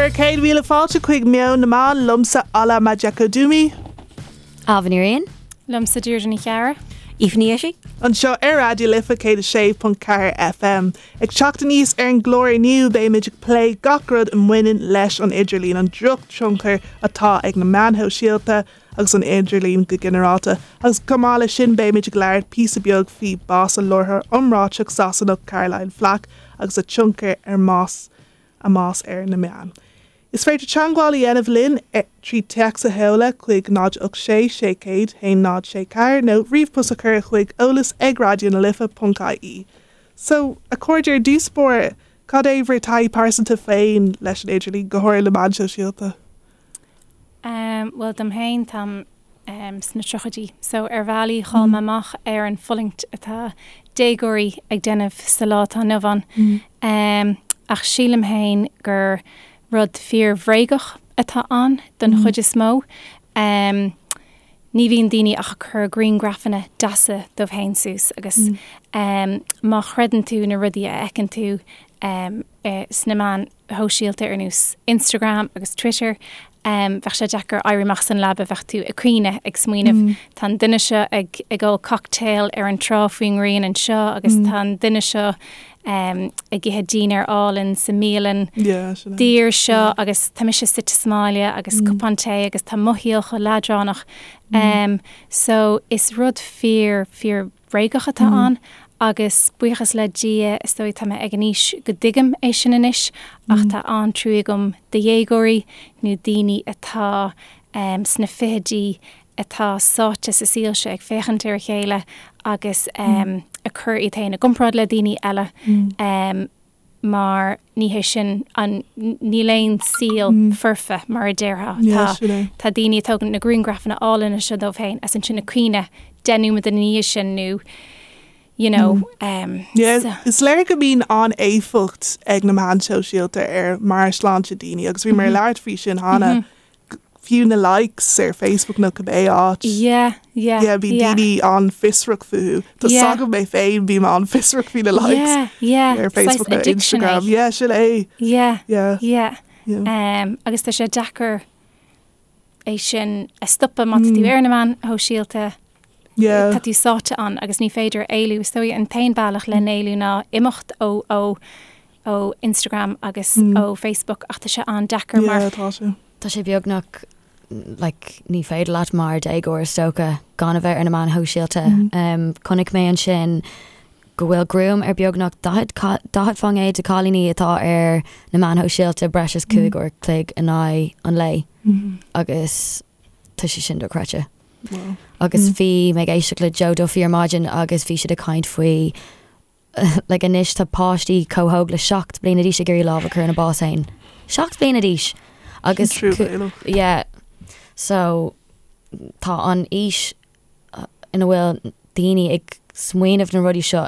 Bhur 100,000 fáilte chuig Meon na Meán, liomsa Ola Majekodunmi. Ailbhe Ní Riain. Liomsa Deirdre Ní Chearra. Aoife Ní Fhiaich. Anseo ar Raidió Life 106.4 FM. Ag teacht aníos ar an gclár inniu beimid ag plé gach rud a mbaineann leis an idirlíon, an drochthionchar atá ag na meáin shóisialta agus an idirlíon go ginearálta, agus chomh maith leis sin beimid ag labhairt píosa beag faoi bás an láithreoir iomráiteach Sasanach Caroline Flack agus a tionchar ar mbás a mbás ar na meáin. Is féidir teagmháil a dhéanamh linn trí téacs a sheoladh chuig 0 8 6 600 1 0 6 4 nó ríomhpost a chur chuig eolas ag raidionalife.ie. So, a chairde, ar dtús báire, cad é bhur taithí pearsanta féin leis an idirlíon, go háirithe na meáin shóisialta? Bhuel, dom féin, táim sna tríochaidí, so ar bhealaí chaill mé amach ar an fulaingt atá déagóirí ag déanamh sa lá atá inniu ann. Ach sílim féin gur rud fíor-bhréagach atá ann don chuid is mó. Ní bhíonn daoine ach ag cur grianghrafanna deasa dóibh féin suas agus má chreideann tú na rudaí a fheiceann tú sna meáin shóisialta ar nós Instagram agus Twitter, bheadh sé deacair éirí amach as an leaba, bheadh tú ag caoineadh, ag smaoineamh, tá an duine seo ag ag ól cocktail ar an trá faoin ngrian anseo agus tá an duine seo ag ithe dinnéar álainn sa mbialann daor seo agus tá mise suite sa mbaile agus cupán tae agus tá mo shaol chomh leadránach. So is rud fíor, fíor bhréagach atá ann agus buíochas le Dia is dóigh tá mé ag an aois go dtuigim é sin anois ach tá an-trua agam do dhéagóirí nó daoine atá sna fichidí atá sáite sa saol seo ag féachaint ar a chéile agus ag cur iad féin i gcomparáid le daoine eile. Mar ní hé sin an, níl aon saol foirfe mar a déarfá. Tá, tá daoine ag tógaint na grianghrafanna álainne seo dóibh féin is ansin ag caoineadh 10 nóiméad ina dhiaidh sin nó you know. Yeah, is léir go mbíonn an-éifeacht ag na meáin shóisialta ar mheabhairshláinte daoine agus bhíomar ag labhairt faoi sin cheana. fiú na likes ar Facebook nó cibé áit. Yeah, yeah, Yeah, bíonn yeah. daoine an-fhiosrach fúthu. Tá Yeah. 's agam mé féin bím an-fhiosrach faoi na likes Yeah, yeah. ar Facebook Saghas nó addiction é. Instagram. Yeah, sin é. Yeah, Yeah. yeah. Yeah. Um, agus tá sé deacair é sin a stopadh má tá tú ar na meáin shóisialta. Yeah. Tá tú sáite ann agus ní féidir éalú. Is dóigh an t-aon bealach le n-éalú ná imeacht ó ó ó Instagram agus ó Facebook ach tá sé an-deacair mar. Yeah, tá sé. Tá sé beagnach like ní féidir leat mar déagóir is dócha gan a bheith ar na meáin shóisialta. Um, chonaic mé ansin go bhfuil gruaim ar beagnach 40 40% de cailíní atá ar na meáin shóisialta breis is 5 uair chloig in aghaidh an lae agus tá sé sin dochreidte. Wow. Agus bhí mé ag éisteacht le Joe Duffy ar maidin agus bhí siad ag caint faoi like anois tá páistí chomh hóg le 7 bliana d'aois ag iarraidh lámh a chur ina bás féin. 7 bliana d'aois! Agus Truamhéalach. yeah. So tá an aois ina bhfuil daoine ag smaoineamh na rudaí seo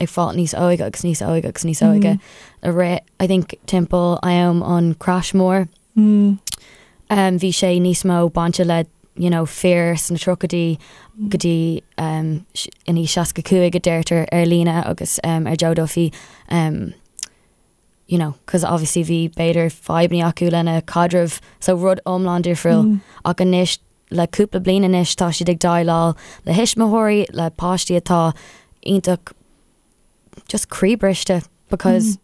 ag fáil níos óige agus níos óige agus níos óige. A rith, I think timpeall am an crash mór. Bhí sé níos mó bainte le you know fir sna tríochaidí go dtí um, in aois 65 a deirtear ar líne agus um, ar Joe Duffy um, you know, cos obviously bhí b'fhéidir fadhbanna acu lena caidreamh so rud iomlán difriúil mm. ach anois le cúpla bliain anois tá siad ag déileáil le thuismitheoirí le páistí atá iontach just croíbhriste because mm.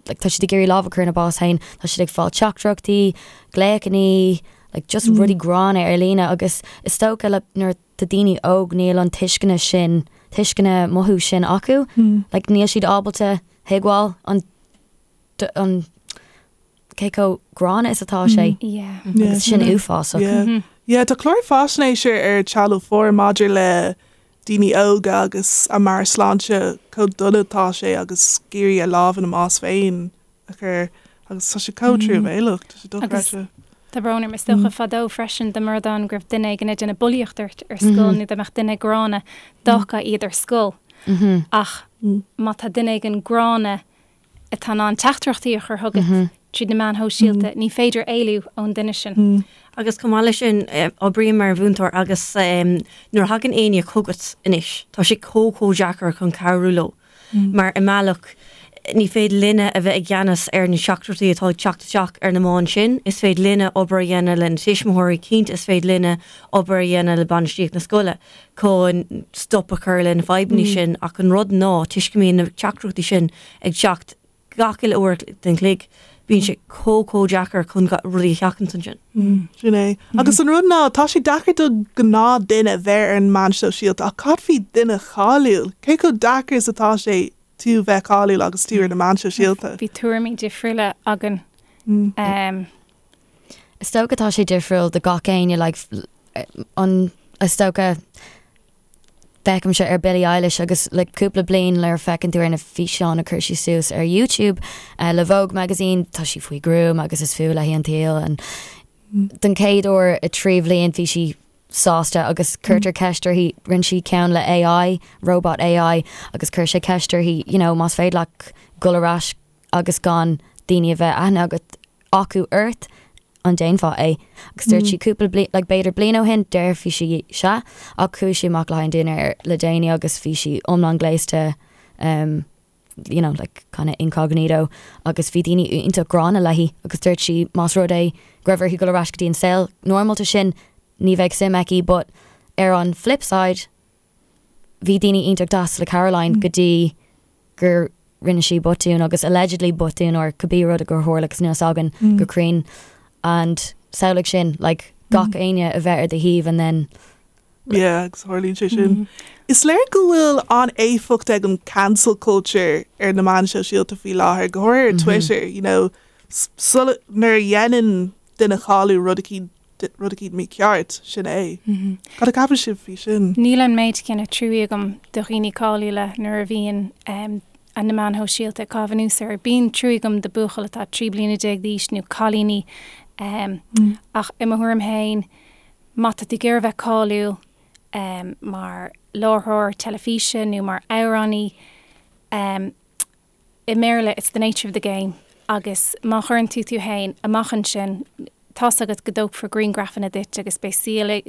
like tá siad ag iarraidh lámh a chur ina bás féin, tá siad ag fáil teachtaireachtaí, glaochannaí, like just rudaí gránna ar líne agus is dócha le nuair tá daoine óg níl an tuisceana sin, tuisceana mothú sin acu, like níl siad ábalta thuigbheáil an an cé chomh gránna is atá sé Yeah. agus sin uafásach. Yeah. Yeah, tá clár faisnéise ar Channel 4 maidir le daoine óga agus a meabhairshláinte chomh dona atá sé agus ag iarraidh a lámh ina mbás féin a chur agus tá sé chomh truamhéalach, tá sé dochreidte. Tá brón orm, is dócha fadó freisin dá mba rud ann go raibh duine éigin ag déanamh bulaíocht ort ar scoil nó dá mbeadh duine gránna d'fhágfá iad ar scoil ach má tá duine éigin gránna atá in ann teachtaireachtaí a chur chugat tríd na meáin shóisialta, ní féidir éalú ón duine sin. Agus chomh maith leis sin, oibrím mar mhúinteoir agus nuair a thagann éinne chugat anois, tá sé chomh chomh deacair chun cabhrú leo. Mar i mbealach, Ní féidir linne a bheith i gceannas ar na teachtaireachtaí atá ag teacht isteach ar na meáin sin. Is féidir linne obair a dhéanamh le na tuismitheoirí, cinnte is féidir linne obair a dhéanamh le bainistíocht na scoile chun stop a chur le na fadhbanna sin ach an rud ná toisc go mbíonn na teachtaireachtaí sin ag teacht gach uile uair den chloig, bíonn sé chomh chomh deacair chun rudaí a sheachaint ansin. Sin é. Agus an rud ná, tá sé deacair do gnáth duine bheith ar an meán sóisialta ach cad faoi duine cáiliúil? Cé chomh deacair is atá sé tú bheith cáiliúil agus tú ar na meáin sóisialta? Bhí tuairimí difriúla againn. Is dócha tá sé difriúil do gach éinne, like, an, is dócha, Feicimse ar Billie Eilish agus le cúpla bliain nuair a feiceann tú ar na físeáin a chuir sí suas ar YouTube le Vogue magazine, tá sí faoi ghruaim agus is fuath léi an tsaol and don chéad uair i 3 bhliain bhí sí sásta agus cuirtear ceist uirthi, rinne sí ceann le AI, robot AI agus chuir sé ceist uirthi you know más féidir leat dul ar ais agus gan daoine a bheith aithne agat acu ort, an déanfá é? Agus dúirt sí cúpla bliain, like b'fhéidir bliain ó shin, déarfaidh sí sea, ach chuaigh sí amach le haghaidh an dinnéar le déanaí agus bhí sí iomlán gléasta, um, you know, like kind of incognito agus bhí daoine iontach gránna léi agus dúirt sí más rud é go raibh uirthi dul ar ais go dtí an saol normalta sin, ní bheadh suim aici but ar an flip side, bhí daoine iontach deas le Caroline go dtí gur rinne sí botún agus allegedly botún or cibé rud a gur tharla agus níl a fhios againn go cruinn and samhlaigh sin like gach éinne a bheith ar do thaobh and then Yeah, agus tharlaíonn sé sin. Is léir go bhfuil an-éifeacht ag an cancel culture ar na meáin shóisialta faoi láthair, go háirithe ar Twitter, you know, sula nuair a dhéanann duine cáiliúil rud eicínt rud eicínt mícheart, sin é. Cad a cheapann sibh faoi sin? Níl an méid céanna truaí agam do dhaoine cáiliúla nuair a bhíonn na meáin shóisialta ag caitheamh anuas orthu. Bíonn truaí agam do buachaill atá 13 bliana d'aois nó cailíní ach i mo thuairim féin, má tá tú ag iarraidh bheith cáiliúil mar láithreoir teilifíse nó mar amhránaí, i mBéarla it's the nature of the game agus má chuireann tú tú fhéin amach ansin tá's agat go dtógfar griangrafanna duit agus beidh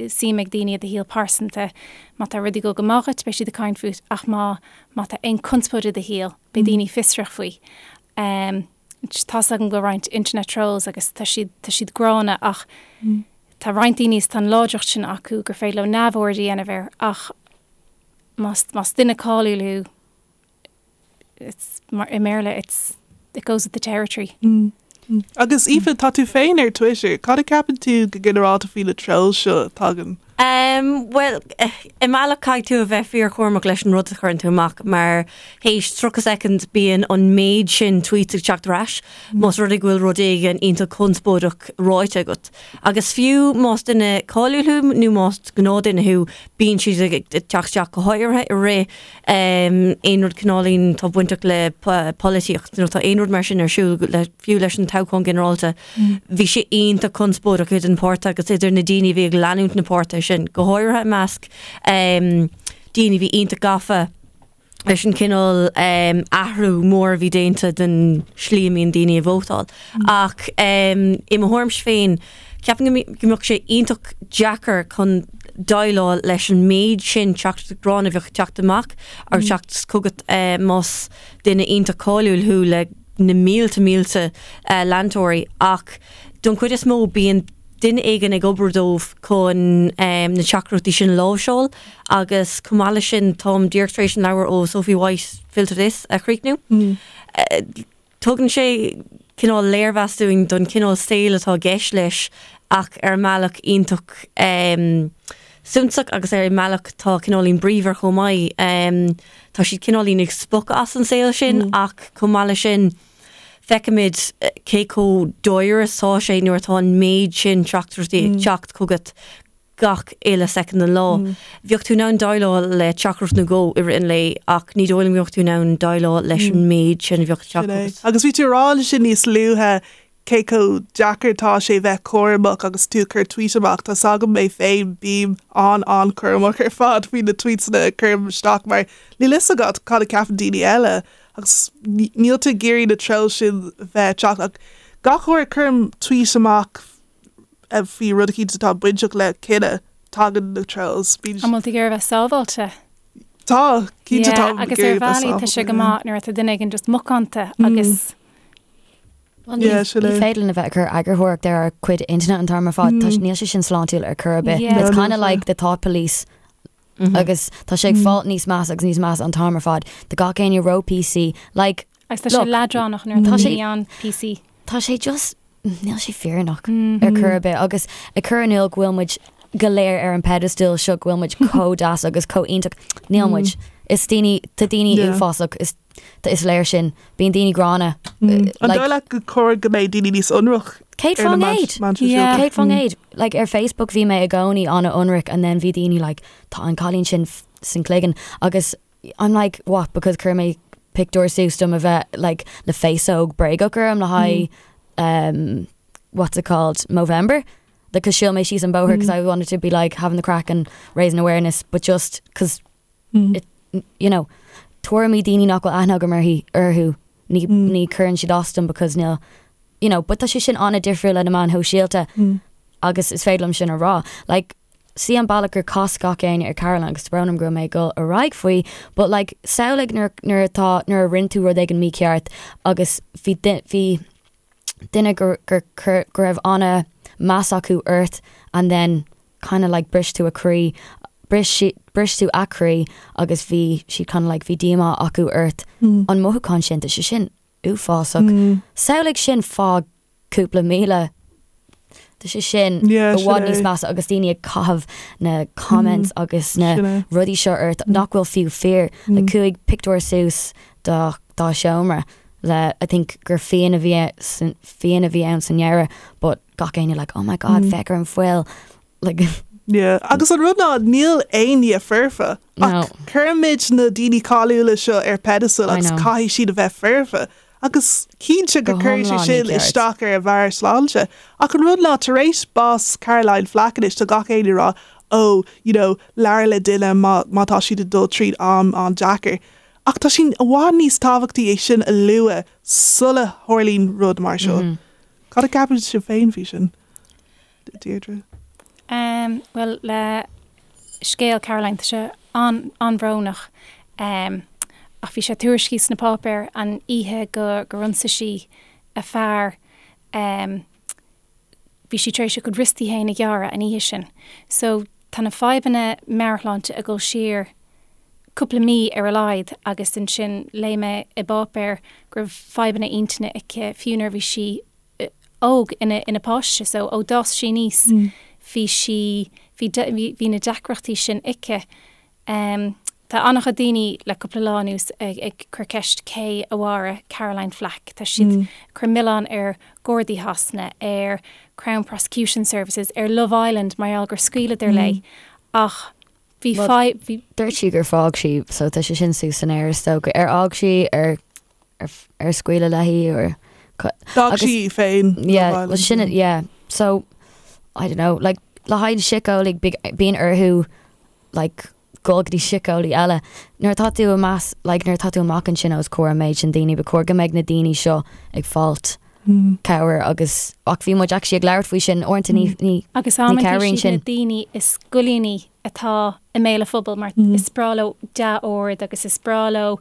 suim ag daoine i do shaol pearsanta. Má tá rudaí ag dul go maith dhuit beidh siad ag caint fút ach má má tá aon conspóid i do shaol beidh daoine fiosrach faoi. Um, tá's agam go bhfuil roinnt internet trolls agus tá siad tá siad gránna ach tá roinnt daoine is tá an láidreacht sin acu gur féidir leo neamhaird a dhéanamh air ach más más duine cáiliúil thú it's mar i mBéarla it's it goes with the territory. Mm. Agus Aoife, tá tú féin ar Twitter, cad a ceapann tú go ginearálta faoi na trolls seo a tagann? Um, well, i mbealach caithfidh tú a bheith fíorchúramach leis an rud a chuireann tú amach mar théis 30 soicind bíonn an méid sin tweets ag teacht ar ais más rud é go bhfuil rud éigin iontach conspóideach ráite agat. Agus fiú más duine cáiliúil thú nó más gnáthdhuine thú, bíonn siad ag teacht isteach go háirithe i rith aon rud cineáilín atá bainteach le polaitíocht nó tá aon rud mar sin ar siúl le fiú leis an toghchán ginearálta. Bhí sé iontach conspóideach idir na páirtithe agus idir na daoine a bhí ag leanúint na páirtithe sin, go háirithe i measc daoine a bhí iontach gafa leis an cineál athrú mór a bhí déanta den slí a mbíonn daoine ag vótáil. Ach i mo thuairimse féin, Ceapaim go mbeadh sé iontach deacair chun déileáil leis an méid sin teachtaireachtaí gránna a bheadh ag teacht amach agus teacht chugat más duine iontach cáiliúil thú le na mílte mílte leantóirí ach don chuid is mó bíonn duine éigin ag obair dóibh chun na teachtaireachtaí sin a láimhseáil agus chomh maith leis sin táim díreach tar éis an leabhar ó Sophie White Filter This a chríochnú. Tugann sé cineál léirmheas dúinn don chineál saoil atá i gceist leis ach ar an mbealach iontach suntasach agus ar an mbealach atá cineáilín bríomhar chomh maith. Tá siad cineáilín ag spochadh as an saol sin ach chomh maith leis sin feicimid cé chomh dáiríre is atá sé nuair atá an méid sin teachtaireachtaí ag teacht chugat gach uile soicind den lá. Bheadh tú in ann déileáil le teachtaireacht nó dhó i rith an lae ach ní dóigh liom go mbeadh tú in ann déileáil leis an méid sin a bheadh ag teacht chugat. Agus bhí tú ag rá ansin níos luaithe cé chomh deacair atá sé bheith cúramach agus tú ag cur tweet amach. Tá's agam mé féin, bím an-an-chúramach ar fad faoi na tweetsanna a chuirim isteach mar níl fhios agat cad a cheapann daoine eile agus níl tú ag iarraidh na trolls sin bheith ag teacht ach gach uair a chuirim tweet amach faoi rud eicínt atá bainteach le cine, tagann na trolls. Bíonn. An bhfuil tú ag iarraidh a bheith sábháilte? Tá, cinnte tá. Agus ar bhealaí tá sé go maith nuair atá duine éigin just macánta agus. Ní féidir linn a bheith ag cur eagarthóireacht ar ár gcuid intinne an t-am ar fad, níl sé sin sláintiúil ar chor ar bith. It's kind of like the thought police agus tá sé ag fáil níos measa agus níos measa an t-am ar fad. Tá gach éinne ró PC, like. Agus tá sé leadránach nuair atá daoine an PC. Tá sé just, níl sé fírinneach ar chor ar bith agus ag cur in iúl go bhfuil muid go léir ar an pedestal seo go bhfuil muid chomh deas agus chomh iontach. Níl muid. Is daoine, tá daoine uafásach, is is léir sin. Bíonn daoine gránna. An dóigh leat gur chóir go mbeidh daoine níos ionraic? 100%. 100%. Like ar Facebook bhí mé i gcónaí an-ionraic and then bhí daoine like tá an cailín sin san cloigeann agus I'm like what because chuir mé pictiúr suas dom a bheith like le féasóg bréagach orm le haghaidh um, what's it called Movember because shiúil mé síos an bóthar because I wanted to be like having the craic and raising awareness but just because it, you know tuairimí daoine nach bhfuil aithne agam uirthi orthu ní ní cuireann siad as dom because níl you know but tá sé sin an-difriúil le na meáin shóisialta agus is féidir liom sin a rá like See an bealach gur chas gach éinne ar Caroline agus tá brón orm go raibh mé ag dul ar aghaidh faoi but like samhlaigh nuair nuair atá nuair a rinne tú rud éigin mícheart agus bhí bhí duine gur gur gur go raibh ana meas acu ort and then kind of like bris tú a croí bris si bris tú a croí agus bhí siad kind of like bhí díomá acu ort an mothúchán sin tá sé sin uafásach samhlaigh sin fá cúpla míle. Tá sé sin i bhfad níos measa agus daoine ag caitheamh na comments agus na rudaí seo ort nach bhfuil fiú fíor. Like chuaigh pictiúr suas dá dá seomra le I think gur fíon a bhí fíon a bhí ann sa ndeireadh but gach éinne like oh my god féach ar an fuil like Yeah. Agus an rud ná níl aon duine foirfe ach cuirimid na daoine cáiliúla seo ar pedestal agus caithfidh siad a bheith foirfe. Agus cinnte go cuireann sé sin isteach ar a mheabhairshláinte. Ach an rud ná, tar éis bás Caroline Flack anois, tá gach éinne ag rá, oh, you know, labhair le duine má, má tá siad ag dul tríd am an-deacair. Ach tá sé i bhfad níos tábhachtaí é sin a lua sula tharlaíonn rud mar seo. Cad a cheapann sibh féin faoi sin, Deirdre? Em, bhuel, le scéal Caroline, tá sé an-bhrónach. Em, ach bhí sé tuairiscithe sna páipéir an oíche go gur ionsaigh sí a fear. Em, bhí sí tar éis a cuid riostaí féin a ghearradh an oíche sin. So, tá na fadhbanna meabhairshláinte ag dul siar cúpla mí ar a laghad agus ansin léigh mé i bpáipéar go raibh fadhbanna intinne aici fiú nuair a bhí sí óg ina ina páiste so ó d'fhás sí aníos bhí sí bhí bhí na deacrachtaí sin aici. Tá an-chuid daoine le cúpla lá anuas ag ag cur ceist cé a mharaigh Caroline Flack. Tá siad ag cur milleán ar Ghardaí Shasana, ar Crown Prosecution Services, ar Love Island mar gheall gur scaoileadar léi ach bhí fadhb bhí Dúirt sí gur fág sí so tá sé sin suas san aer is dócha. Ar fhág sí ar ar scaoileadh léi or D'fhág sí í féin Yeah, well sin yeah. So I don't know, like le haghaidh síceolaí bíonn orthu like dul go dtí síceolaí eile. Nuair atá tú amach like nuair atá tú amach ansin os comhair an méid sin daoine, ba chóir go mbeidh na daoine seo ag fáilt cabhair agus ach bhí muid actually ag labhairt faoi sin uaireanta ní ní Agus ní cabhraíonn sin. na daoine is goilliúnaí atá i mbéal an phobail mar is breá leo dea-aird agus is breá leo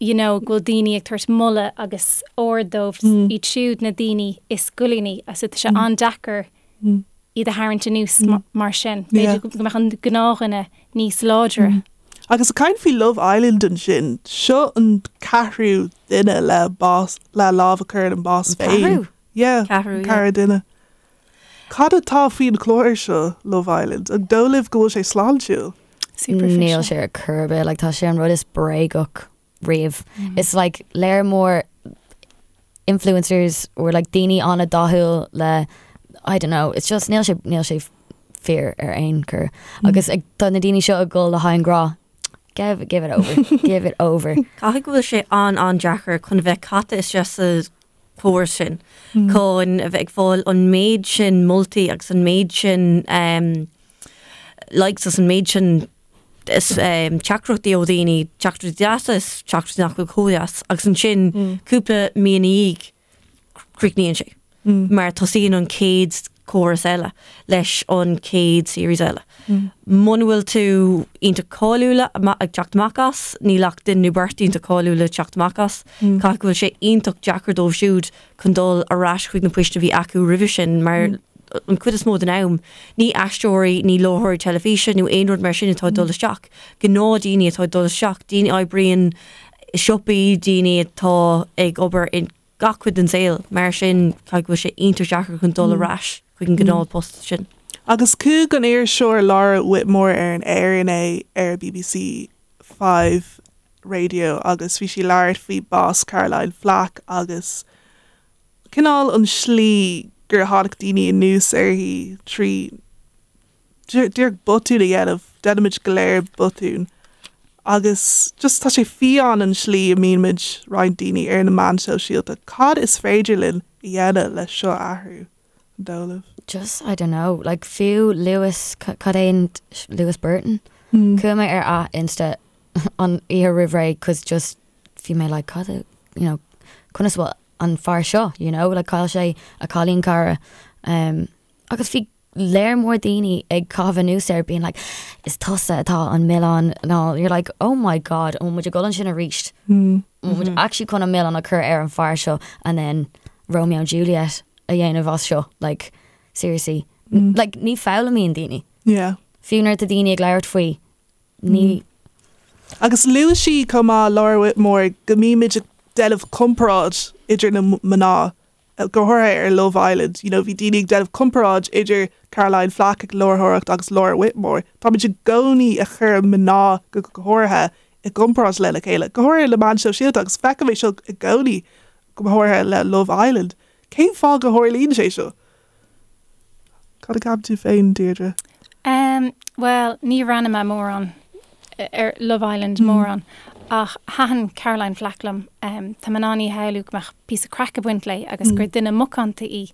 you know, go bhfuil daoine ag tabhairt moladh agus aird dóibh, iad siúd na daoine is goilliúnaí, so tá sé an-deacair iad a tharraingt anuas mar sin. B'fhéidir go mbeadh an gnáthdhuine níos láidre. Agus ag caint faoi Love Island ansin, seo an ceathrú duine le bás, le lámh a chur ina mbás féin. Ceathrú? Yeah, Ceathrú, yeah. ceathrú duine. Cad atá faoin chlár seo, Love Island? An dóigh libh go bhfuil sé sláintiúil? Superficial. Níl sé ar chor ar bith, like tá sé an rud is bréagach riamh. It's like léar mór influencers or like daoine an-dathúil le I don't know, it's just níl sé níl sé fíor ar aon chor. Agus ag tá na daoine seo ag dul le haghaidh an grá. Give give it over, give it over. Caithfidh go bhfuil sé an-an-deacair chun a bheith caite isteach sa chóras sin, chun a bheith ag fáil an méid sin moltaí agus an méid sin likes agus an méid sin teachtaireachtaí ó dhaoine, teachtaireachtaí deasa is teachtaireachtaí nach bhfuil chomh deas, agus ansin cúpla mí ina dhiaidh críochnaíonn sé mar tosaíonn an chéad. córas eile, leis an chéad series eile. Muna bhfuil tú iontach cáiliúla ag teacht amach as, níl ach duine nó beirt iontach cáiliúla ag teacht amach as, caithfidh go bhfuil sé iontach deacair dóibh siúd chun dul ar ais chuig na poist a bhí acu roimhe sin mar an chuid is mó den am, ní aisteoirí, ní láithreoirí teilifíse nó aon rud mar sin atá ag dul isteach, gnáthdaoine atá ag dul isteach, daoine a oibríonn i siopaí, daoine atá ag obair i gach cuid den saol, mar sin caithfidh go bhfuil sé iontach deacair chun dul ar ais chuig an gcineál post sin. Agus chuaigh an iriseoir Laura Whitmore ar an aer inné ar BBC 5 Radio agus bhí sí ag labhairt faoi bás Caroline Flack agus cineál an slí gur tháinig daoine anuas uirthi trí díreach botún a dhéanamh, déanaimid go léir botúin agus just tá sé fiáin an slí a mbíonn roinnt daoine ar na meáin shóisialta. Cad is féidir linn a dhéanamh le seo a athrú, an dóigh libh? Just, I don't know, like fiú Lewis, cad é an, Lewis Burton? Chuaigh mé ar a Insta an oíche roimh ré cos just bhí mé like cad a, you know, conas bhfuil an fear seo, you know, like chaill sé a cailín cara um, agus bhí léar mór daoine ag caitheamh anuas air being like is tusa atá an milleán and all you're like oh my god an bhfuil muid ag dul ansin arís mm. an bhfuil muid actually chun an milleán a chur ar an fear seo and then Romeo and Juliet a dhéanamh as seo like seriously mm. like ní foghlaimíonn daoine yeah fiú nuair atá daoine ag labhairt faoi ní Agus luaigh sí chomh maith Laura Whitmore go mbímid ag déanamh comparáid idir na mná go háirithe ar Love Island, you know, bhí daoine ag déanamh comparáid idir Caroline Flack ag láithreoireacht agus Laura Whitmore. Táimid i gcónaí ag cur mná go háirithe i gcomparáid lena chéile, go háirithe le meáin shóisialta agus feicim é seo i gcónaí, go háirithe le Love Island. Cén fáth go tharlaíonn sé seo? Cad a cheapann tú féin, Deirdre? Um, bhuel, ní bhreathnaigh mé mórán ar Love Island mórán, ach thaitin Caroline Flack liom. Um, tá mé in ann í a shamhlú go mbeadh píosa craic ag baint léi agus gur duine macánta í.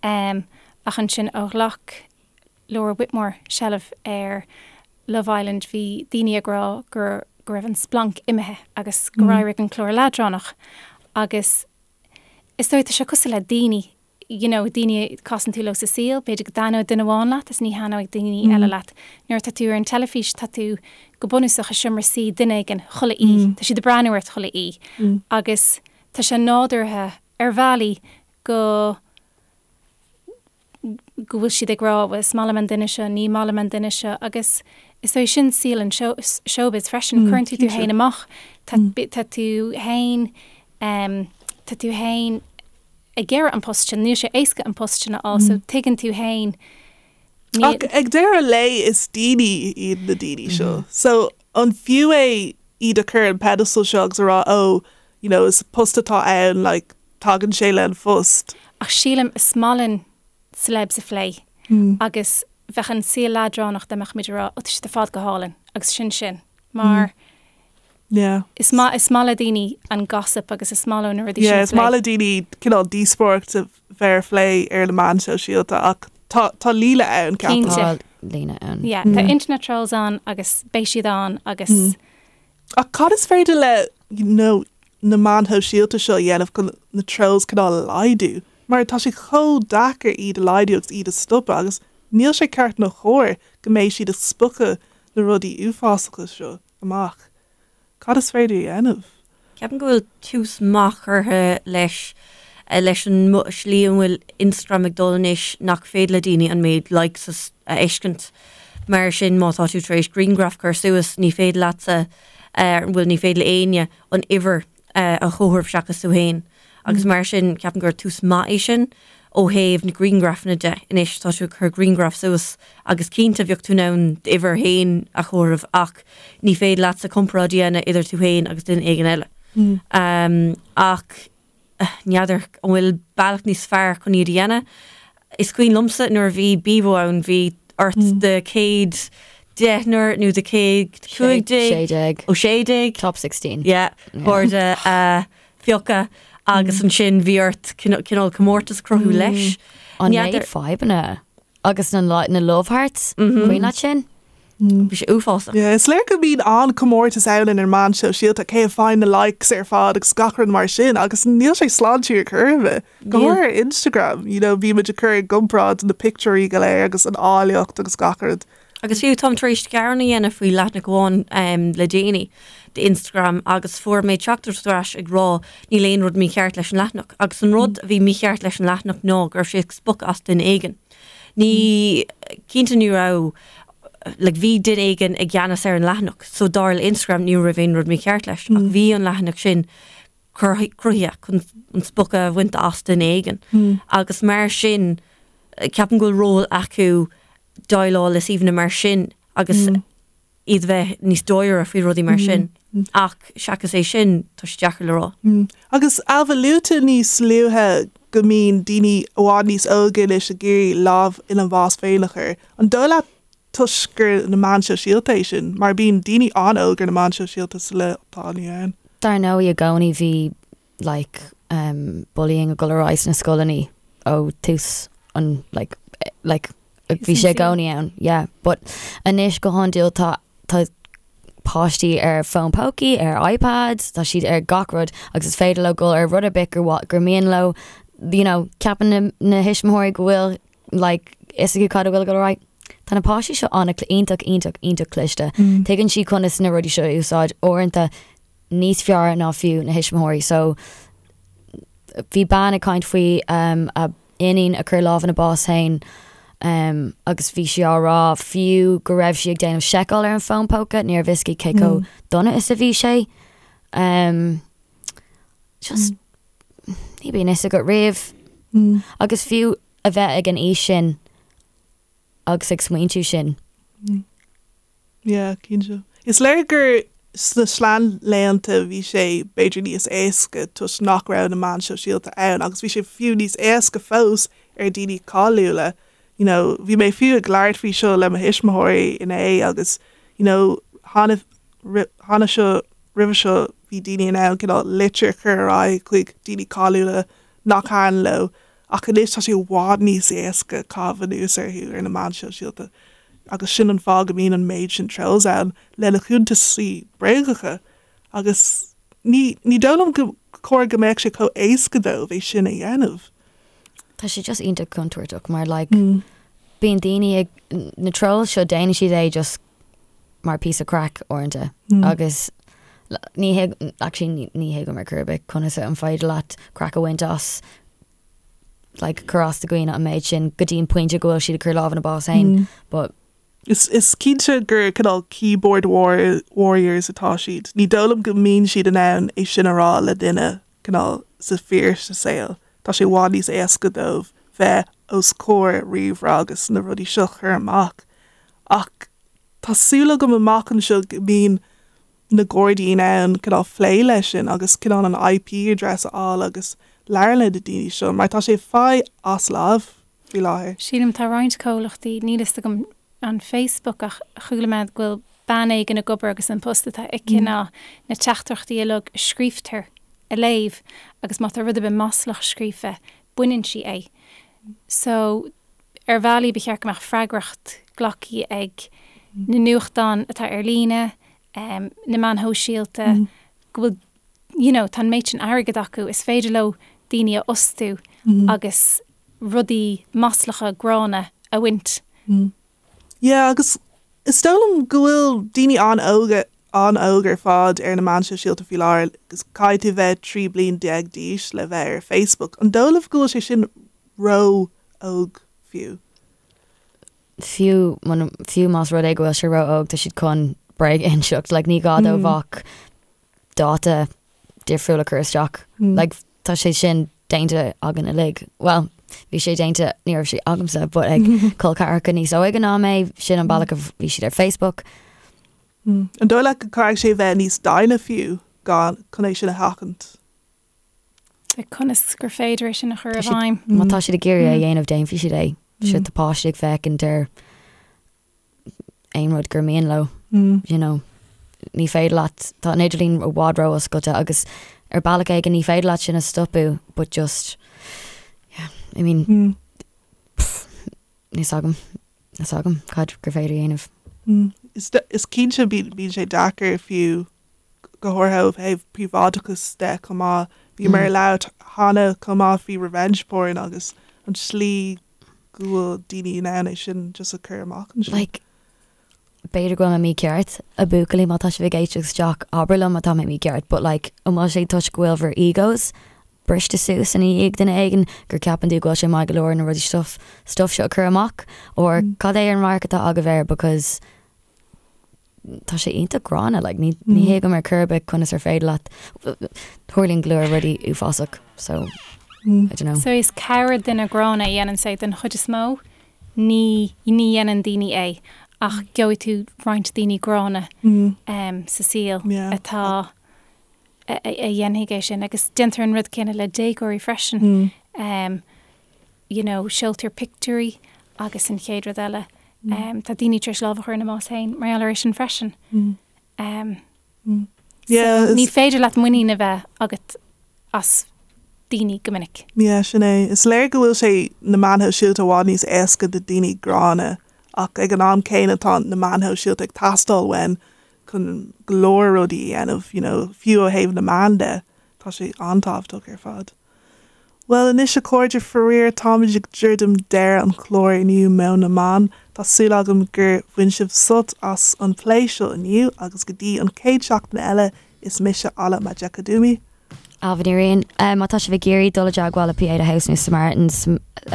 Um, ach ansin ó ghlac Laura Whitmore seilbh ar Love Island bhí daoine ag rá gur go raibh an splanc imithe agus gur éirigh an clár leadránach agus is dóigh tá sé cosúil le daoine you know, daoine a casann tú leo sa saol, b'fhéidir go dtaitneoidh duine amháin leat is ní thaitneoidh daoine eile leat. Nuair atá tú ar an teilifís tá tú go bunúsach i seomra suí duine éigin chuile oíche, tá siad ag breathnú ort chuile oíche agus tá sé nádúrtha ar bhealaí go go bhfuil siad ag rá bhuel is maith liom an duine seo, ní maith liom an duine seo agus is dóigh sin saol an showbiz freisin, cuireann tú tú féin amach, tá tá tú féin tá tú féin ag iarraidh an post sin, níl sé éasca an post sin a fháil so tuigeann tú féin Ach ag deireadh an lae is daoine iad na daoine seo. So an fiú é iad a chur ar an pedestal seo agus a rá oh you know is post atá ann like tagann sé le an phost. Ach sílim is maith linn celebs a phlé agus bheadh an saol leadránach dá mbeadh muid ag rá oh tá siad ar fad go hálainn agus sin sin mar Yeah. Is maith, is maith le daoine an gossip agus is maith leo na rudaí sin a phlé. Yeah, is maith le daoine cineál díospóireacht a bheith ar phlé ar na meáin shóisialta ach tá, tá líne ann, ceapaim. Cinnte. Tá líne ann. Yeah, tá internet trolls ann agus beidh siad ann agus. Ach cad is féidir le, you know, na meáin shóisialta seo a dhéanamh chun na trolls cineál a laghdú? Mar tá sé chomh deacair iad a laghdú agus iad a stopadh agus níl sé ceart nó chóir go mbeidh siad ag spochadh na rudaí uafásacha seo. amach. Cad is féidir a dhéanamh? Ceapaim go bhfuil tús maith curtha leis leis an slí an bhfuil Instagram ag dul anois nach féidir le daoine an méid likes a fheiscint. Mar sin má tá tú tar éis grianghraf cur suas ní féidir leatsa, bhuel ní féidir le éinne an uimhir a chomhaireamh seachas tú féin. Agus mar sin, ceapaim gur tús maith é sin ó thaobh na grianghrafanna de. Anois, tá tú ag cur grianghraf suas agus cinnte bheadh tú in ann d'uimhir féin a chomhaireamh ach ní féidir leatsa comparáid a dhéanamh idir tú féin agus duine éigin eile. Ach n'fheadar an bhfuil bealach níos fearr chun iad a dhéanamh. Is cuimhin liomsa nuair a bhí Bebo ann, bhí ort do chéad deichniúr nó do chéad 15, 16. ó 16, Top 16. yeah, cairde a phiocadh agus ansin bhí ort cineál comórtas a chruthú leis. An méid fadhbanna agus na na love hearts, cuimhin leat sin? Bhí sé uafásach. Yeah, is léir go mbíonn an-chomórtas ann ar na meáin shóisialta, cé a faigheann na likes ar fad agus gach rud mar sin agus níl sé sláintiúil ar chor ar bith. Go háirithe ar Instagram, you know, bímid ag cur i gcomparáid na pictiúirí go léir agus an áilleacht agus gach rud. Agus fiú táim tar éis gearán a dhéanamh faoi leathanach amháin le déanaí d'Instagram agus fuair mé teachtaireacht ar ais ag rá níl aon rud mícheart leis an leathanach. Agus an rud a bhí mícheart leis an leathanach ná go raibh sé ag spochadh as duine éigin. Ní, cinnte ní raibh, like bhí duine éigin i gceannas ar an leathanach so dar le Instagram ní raibh aon rud mícheart leis ach bhí an leathanach sin cruthaithe chun an spochadh a bhaint as duine éigin agus mar sin ceapaim go bhfuil ról acu déileáil le suíomhanna mar sin agus iad bheith níos dáiríre faoi rudaí mar sin. Ach seachas é sin, tá sé deacair le rá. Agus Ailbhe, luaigh tú níos luaithe go mbíonn daoine i bhfad níos óige anois ag iarraidh lámh ina mbás féin a chur. An dóigh leat toisc gur na meáin shóisialta é sin? Mar bíonn daoine an-óg ar na meáin shóisialta sa lá atá inniu ann. Dar ndóigh i gcónaí bhí like um bullying ag dul ar aghaidh sna scoileanna ó tús an like like bhí sé i gcónaí ann yeah but anois go hiondúil tá tá páistí ar fón pócaí ar iPads tá siad ar gach rud agus is féidir leo dul ar rud ar bith gur gur mian leo you know ceapann na na thuismitheoirí go bhfuil like fhios acu cad a bhfuil ag dul ar aghaidh. Tá na páistí seo an iontach iontach iontach cliste. Tuigeann siad conas na rudaí seo a úsáid uaireanta níos fearr ná fiú na thuismitheoirí so bhí bean ag caint faoi um, a iníon a chuir lámh ina bás féin um, agus bhí sí á rá fiú go raibh sí ag déanamh seiceáil ar an fón póca ní raibh fhios aici cé chomh mm. dona is a bhí sé. Um, just mm. ní bhíonn fhios agat riamh mm. agus fiú a bheith ag an aois sin agus ag smaointiú sin. Mm. Yeah, cinnte. Is léir gur sna seanlaethanta bhí sé b'fhéidir níos éasca toisc nach raibh na meáin shóisialta ann agus bhí sé fiú níos éasca fós ar daoine cáiliúla. You know, bhí mé fiú ag labhairt faoi seo le mo thuismitheoirí inné agus you know, cheana cheana seo roimhe seo bhí daoine in ann cineál litir a chur ar aghaidh chuig daoine cáiliúla nach thaitin leo Ach anois tá sé i bhfad níos éasca caitheamh anuas orthu ar na meáin shóisialta agus sin an fáth go mbíonn an méid sin trolls ann lena chuntasaí bréagacha agus ní ní dóigh liom go chóir go mbeadh sé chomh éasca dóibh é sin a dhéanamh. Tá sé just iontach contúirteach mar like bíonn daoine ag na trolls seo déanann siad é just mar píosa craic uaireanta agus ní actually ní thuigim ar chor ar bith conas an féidir leat craic a bhaint as like cur as do dhaoine an méid sin go dtí an pointe go bhfuil siad ag cur lámh ina bás féin but Is is cinnte gur cineál keyboard war warriors atá siad. Ní dóigh liom go mbíonn siad in ann é sin a rá le duine cineál sa fíor sa saol. Tá sé i bhfad níos éasca dóibh bheith os comhair ríomhaire agus na rudaí seo a chur amach. Ach tá súil agam amach anseo go mbíonn na Gardaí in ann cineál plé leis sin agus cineál an IP address a fháil agus labhairt le na daoine seo mar tá sé faighte as láimh faoi láthair. Sílim tá roinnt comhlachtaí, níl fhios agam an Facebook ach chuala mé go bhfuil bean éigin ag obair agus an post atá aici ná na teachtaireachtaí uilig a scríobhtar a léamh agus má tá rud ar bith maslach scríofa baineann sí é. So ar bhealaí ba cheart go mbeadh freagracht glactha ag na nuachtáin atá ar líne, na meáin shóisialta, go bhfuil you know tá an méid sin airgead acu, is féidir leo daoine a fhostú agus rudaí maslacha gránna a bhaint. Yeah agus is dóigh liom go bhfuil daoine an-óga an-óg ar fad ar na meáin shóisialta faoi láthair agus caithfidh tú bheith 13 bliain d'aois le bheith ar Facebook. An dóigh libh go bhfuil sé sin ró-óg fiú? Fiú fiú más rud é go bhfuil sé ró-óg tá siad chun bréag a inseacht like ní gá dóibh ach dáta difriúil a chur isteach. Like tá sé sin déanta againn uilig. Well, bhí sé déanta ní raibh sé agamsa, but ag col ceathracha níos óige ná mé, sin an bealach a bhí siad ar Facebook. An dóigh leat go caithfidh sé bheith níos déine fiú gan chun é sin a sheachaint? Like conas gur féidir é sin a chur i bhfeidhm? Má tá siad ag iarraidh é a dhéanamh déanfaidh siad é. Sure tá páistí ag féachaint ar aon rud gur mian leo, you know. Ní féidir leat, tá an idirlíon i bhfad ró-oscailte agus ar bealach éigin ní féidir leat sin a stopadh but just, yeah, I mean, pff, níl 's agam, níl 's agam cad gur féidir a dhéanamh. Is is cinnte bíonn sé deacair fiú go háirithe ó thaobh príobháideachas de chomh maith. Bhíomar ag labhairt cheana chomh maith faoi revenge porn agus an tslí go bhfuil daoine in ann é sin just a chur amach ansin. Like, b'fhéidir go bhfuil mé mícheart, a bhuachaillí, má tá sibh ag éisteacht isteach, abair liom má tá mé mícheart, but like, an bhfuil sé toisc go bhfuil bhur egos briste suas ina dhiaidh duine éigin gur ceapann tú go bhfuil sé maith go leor na rudaí stuff stuff seo a chur amach or cad é an radharc atá agaibh air because tá sé iontach gránna like ní ní thuigim ar chor ar bith conas ar féidir leat tarlaíonn go leor rudaí uafásach so I don't know. So is corrdhuine gránna a dhéanann sé den chuid is mó, ní ní dhéanann daoine é ach gheobhaidh tú roinnt daoine gránna sa saol atá a dhéanfaidh é sin agus déantar an rud céanna le déagóirí freisin. You know, seoltar pictiúirí agus an chéad rud eile, tá daoine tar éis lámh a chur ina mbás féin mar gheall air sin freisin. So ní féidir leat muinín a bheith agat as daoine go minic. Yeah, sin é. Is léir go bhfuil sé na meáin shóisialta i bhfad níos éasca do daoine gránna ach ag an am céanna tá na meáin shóisialta ag teastáil uainn chun go leor rudaí a dhéanamh, you know, fiú ó thaobh na meán de, tá sé an-tábhachtach ar fad. Bhuel anois a chairde, faraor táimid ag druidim deireadh an chláir inniu Meon na mBan. Tá súil agam gur bhain sibh sult as an plé seo inniu agus go dtí an chéad seachtain eile is mise Ala Majekodunmi. Ailbhe Ní Riain. Má tá sibh ag iarraidh dul i dteagmháil le Pieta House nó Samaritans,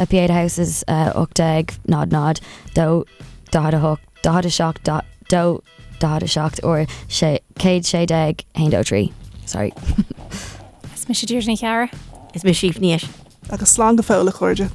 Pieta House is 1800 2 48 47 2 47 or 116 1 2 3. Sorry. Is mise Deirdre Ní Chearra. Is mise Aoife Ní Eisín. Agus slán go fóill a chairde.